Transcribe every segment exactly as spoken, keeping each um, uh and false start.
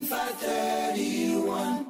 five thirty-one.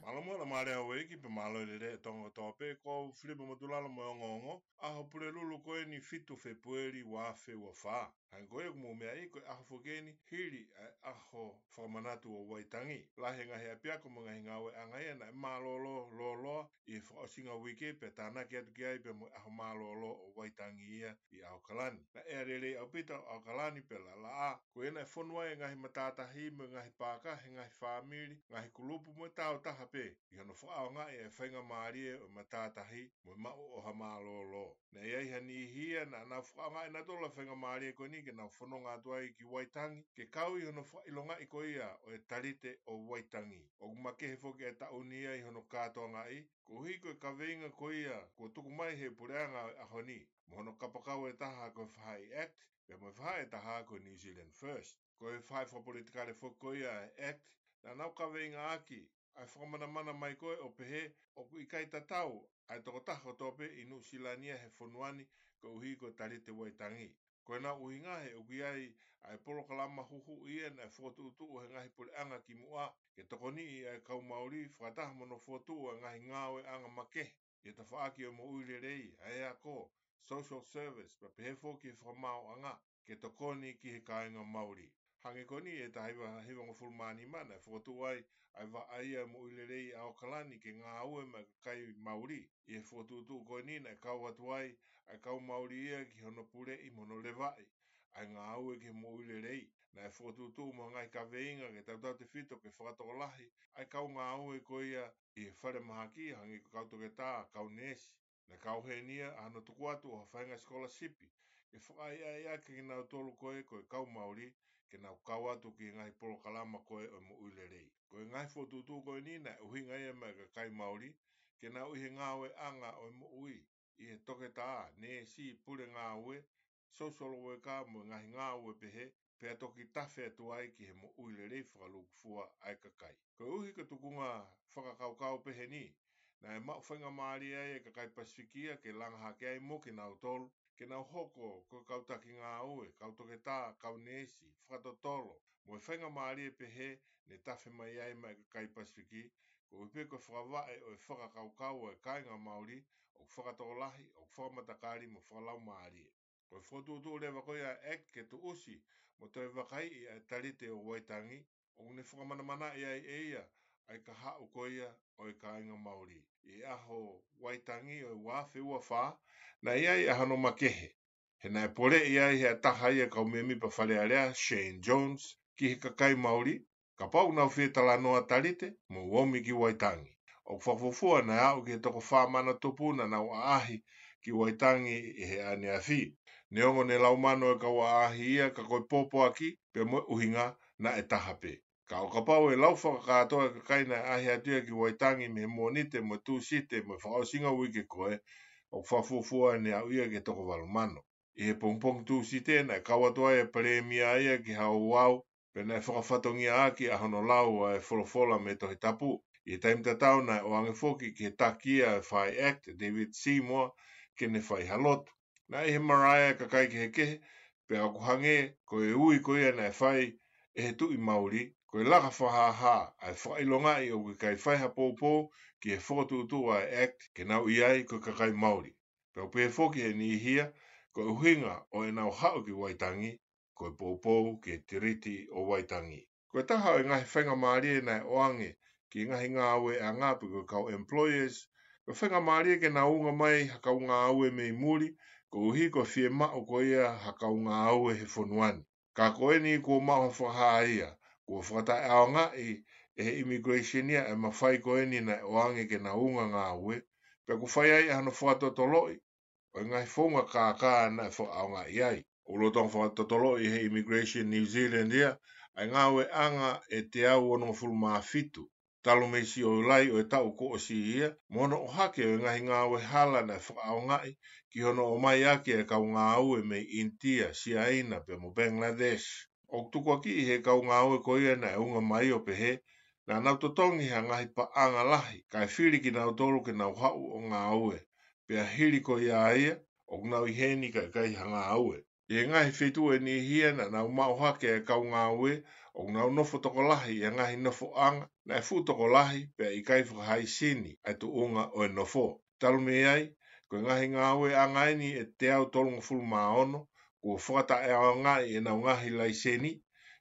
Mālō muʻa Lāmālie Hauʻeiki pea mālō e lelei ʻa e Tonga kotoa pē, ko au Filipe Motulalo mo e ongoongo. ʻAho Pulelulu ko eni fitu Fēpueli ua afe ua fā. Hangē ko ia ʻoku mou meaʻi, ko e ʻaho foki eni hili ʻa e ʻaho fakamanatu ʻo Waitangi. Lahi e ngaahi ʻapiako mo e ngaahi ngāueʻanga ia naʻe mālōlō lōloa ʻi he fakaʻosinga uike pea tānaki atu ki ai pea mo e ʻaho mālōlō ʻo Waitangi ia ʻi ʻAokalani. Naʻe ʻea lelei ʻaupito ʻa ʻAokalani pea laʻalaʻā. Ko ia naʻe fonu ai e ngaahi matātahi mo e ngaahi paaka he ngaahi fāmili, ngaahi kulupu mo e taautaha pē ʻi hono fakaʻaongaʻi e faingamālie ʻo e matātahi mo e maʻu ʻo ha mālōlō. Naʻe ʻi ai ha niʻihi ia naʻa nau fakaʻaongaʻi nautolu e faingamālie ko eni ke nau fononga atu ai ki Waitangi, ke kau ʻi hono fakaʻilongaʻi ko ia ʻo e talite ʻo Waitangi. ʻOku makehe foki e taʻu ni ia ʻi hono kātoangaʻi, koeʻuhi ko e kaveinga ko ia kuo tuku mai ʻe he puleʻanga ʻo e ʻaho ni, mo hono kapakau ʻe taha ko e Faʻahi Act, pea mo e faʻahi ʻe taha ko e New Zealand First. Ko e faʻahi fakapolitikale foki ko ia ʻa e Act, naʻa nau kaveingaʻaki ʻa e fakamanamana mai ko ē ʻo pehē ʻoku ʻikai tatau ʻa e tokotaha kotoa pē ʻi Nuʻusila ni ia he fonua ni koeʻuhi ko e talite Waitangi. Ko ʻenau ʻuhinga he ʻoku ʻi ai ʻa e polokalama huhuʻi ia naʻe fokotuʻutuʻu ʻe he ngaahi puleʻanga kimuʻa ke tokoniʻi ʻa e kau Mauli fakataha mo hono fokotuʻu ʻa e ngaahi ngāueʻanga makehe ʻi he tafaʻaki ʻo e moʻui lelei, ʻa e ako, social service, pea pehē foki e fakamaauʻanga ke tokoni ki he kāinga Mauli. Hangē ko eni ʻi he taha hiva hivangofulu mā nima naʻe fokotuʻu ai ʻa e vaʻa ia ʻo e moʻui lelei ʻi ʻAokalani ke ngāue maʻa e kakai Mauli. ʻI he fokotuʻutuʻu ko eni naʻe kau atu ai ʻa e kau Mauli ia ki hono puleʻi mo hono levaʻi ʻa e ngāue ki he moʻui lelei. Naʻe fokotuʻutuʻu mo e ngaahi kaveinga ke tautautefito ke fakatokolahi ʻa e kau ngāue ko ia ʻi he falemahaki, hangē ko e kau toketā, kau neesi. Naʻe kau heni ia ʻa hono tuku atu ʻo ha faʻahinga sikolasipi ke fakaʻaiʻaiʻaki kinautolu ko ē ko e kau Mauli ke nau kau atu ki he ngaahi polokalama ko ē ʻo e moʻui lelei. Ko e ngaahi fokotuʻutuʻu ko eni naʻe ʻuhinga ia maʻa e kakai Mauli ke nau ʻi he ngāueʻanga ʻo e moʻui, ʻi he toketā, neesi, pule ngāue, social worker mo e ngaahi ngāue pehē, pea toki tafe atu ai ki he moʻui lelei fakalūkufua ʻa e kakai. Koeʻuhi ko e tukunga fakakaukau pehē ni, naʻe maʻu faingamālie ai e kakai Pasifiki ia ke langa hake ai mo kinautolu ke nau hoko ko e kau taki ngāue, kau toketā, kau neesi, fakatotolo, mo e faingamālie pehē ne tafe mai ai maʻa e kakai Pasifiki, koeʻuhi pē ko e fakavaʻe ʻo e fakakaukau ʻa e kāinga Mauli ʻoku fakatokolahi, ʻoku fakamatakali mo fakalaumālie. Ko e fokotuʻutuʻu leva ko ia ʻa e Act ke tuʻusi mo toe vakaiʻi ʻa e talite ʻo Waitangi, ʻoku ne fakamanamanaʻi ai ʻe ia ʻa e kahaʻu ko ia ʻo e kāinga Mauli ʻi he ʻaho Waitangi ʻo e ua afe ua fā. Naʻe ʻi ai ʻa hono makehe, he naʻe poleʻi ai ʻe ha taha ia e kau mēmipa Fale Alea, Shane Jones, ki he kakai Mauli, kapau ʻoku nau fie talanoa talite, mou omi ki Waitangi. ʻOku fakafuofua naʻe aʻu ki he toko fā mano tupu naʻa nau ʻaʻahi ki Waitangi ʻi he ʻaneafi. Neongo ne lau mano e kau ʻaʻahi ia, ka ko e pōpoaki pea mo e ʻuhinga naʻe taha pē. Ka ʻo kapau ʻe lau fakakātoa e kakai naʻe ʻaʻahi atu ia ki Waitangi mei he Mōnite mo e Tūsite mo e fakaʻosinga uike ko ē, ʻoku fakafuofua ne aʻu ia ki he toko valu mano. ʻI he pongipongi Tūsite naʻe kau atu ai e Palēmia ia ki he ouau, pea naʻe fakafatongiaʻaki ʻa hono lau ʻa e folofola mei he Tohi Tapu. ʻI he taimi tatau naʻe ʻoange foki ki he taki ia ʻo e Faʻahi Act, David Seymour, ke ne fai ha lotu. Naʻe ʻi he marae e kakai kehekehe, pea ʻoku hangē ko e ui ko ia naʻe fai ʻe he Tuʻi Mauli, ko e laka fakahāhā ʻa e fakaʻilongaʻi ʻoku ʻikai fai ha poupou ki he fokotuʻutuʻu ʻa e Act ke nau ʻi ai ko e kakai Mauli. Pea ʻoku pehē foki ʻe he niʻihi ia, ko e ʻuhinga ʻo ʻenau haʻu ki Waitangi, ko e poupou ki he Tiriti ʻo Waitangi. Ko e taha ʻo e ngaahi faingamālie naʻe ʻoange ki he ngaahi ngāueʻanga pe ko e kau employers, ko e faingamālie ke nau unga mai ha kau ngāue mei muli, koeʻuhi ko e fiemaʻu ko ia ha kau ngāue he fonua ni. Ka ko eni kuo maʻu ha fakahā ia, kuo fakataʻeʻaongaʻi ʻe he immigration ia e mafai ko eni naʻe ʻoange ke nau unga ngāue, pea kuo fai ai ʻa hono fakatotoloʻi ʻo e ngaahi founga kākā naʻe fakaʻaongaʻi ai. ʻOku lolotonga fakatotoloʻi ʻe he Immigration New Zealand ia ʻa e ngāueʻanga ʻe teau onongofulu mā fitu, talu mei Siulai ʻo e taʻu kuo ʻosi ia, mo hono ʻohake ʻo e ngaahi ngāue hala naʻe fakaʻaongaʻi ki hono ʻomai ʻaki e kau ngāue mei ʻInitia, Siaina, pea mo Bangladesh. ʻOku tukuakiʻi ʻe he kau ngāue ko ia naʻe unga mai ʻo pehē, naʻa nau totongi ha ngaahi paʻanga lahi, kae fili kinautolu ke nau haʻu ʻo ngāue. Pea hili ko ia ia, ʻoku nau ʻi heni kae ʻikai ha ngāue. ʻI he ngaahi feituʻu ʻe niʻihi ia naʻa nau maʻu hake e kau ngāue, ʻoku nau nofo tokolahi ʻi he ngaahi nofoʻanga naʻe fuʻu tokolahi pea ʻikai fakahaisini ʻa e tuʻunga ʻo e nofo. Talu mei ai, ko e ngaahi ngāueʻanga ʻeni ʻe teau tolungofulu mā ono kuo fakataʻeʻaongaʻi ʻenau ngaahi laiseni,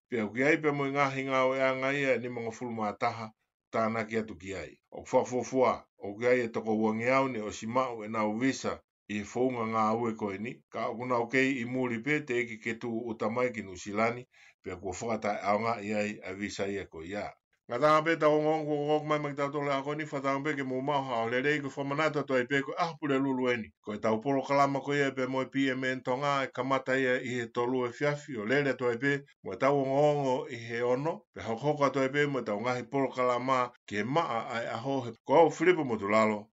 pea ʻoku ʻi ai pea mo e ngaahi ngāueʻanga ia ʻe nimangofulu mā taha tānaki atu ki ai. ʻOku fakafuofua ʻoku ʻi ai e toko uangeau ne ʻosi maʻu ʻenau visa ʻi he founga ngāue ko eni, ka ʻoku nau kei ʻi muli pē teʻeki ke tūʻuta mai ki Nuʻusila ni, pea kuo fakataʻeʻaongaʻi ai ʻa e visa ia ko ia. Ngataʻanga pē ʻetau ongoongo kuo ʻoku mai maʻa kitautolu he ʻaho ni, fakatauange pē ke mou maʻu ha ʻaho lelei. Ko e fakamanatu atu ai pē ko e ʻaho Pulelulu ʻeni. Ko ʻetau polokalama ko ia pea mo e P M N Tonga ʻe kamata ia ʻi he tolu efiafi ʻo lele atu ai pē mo ʻetau ongoongo ʻi he ono, pea hokohoko atu ai pē mo ʻetau ngaahi polokalama ki he maʻa ʻa e ʻaho. He ko au Filipo Motulalo,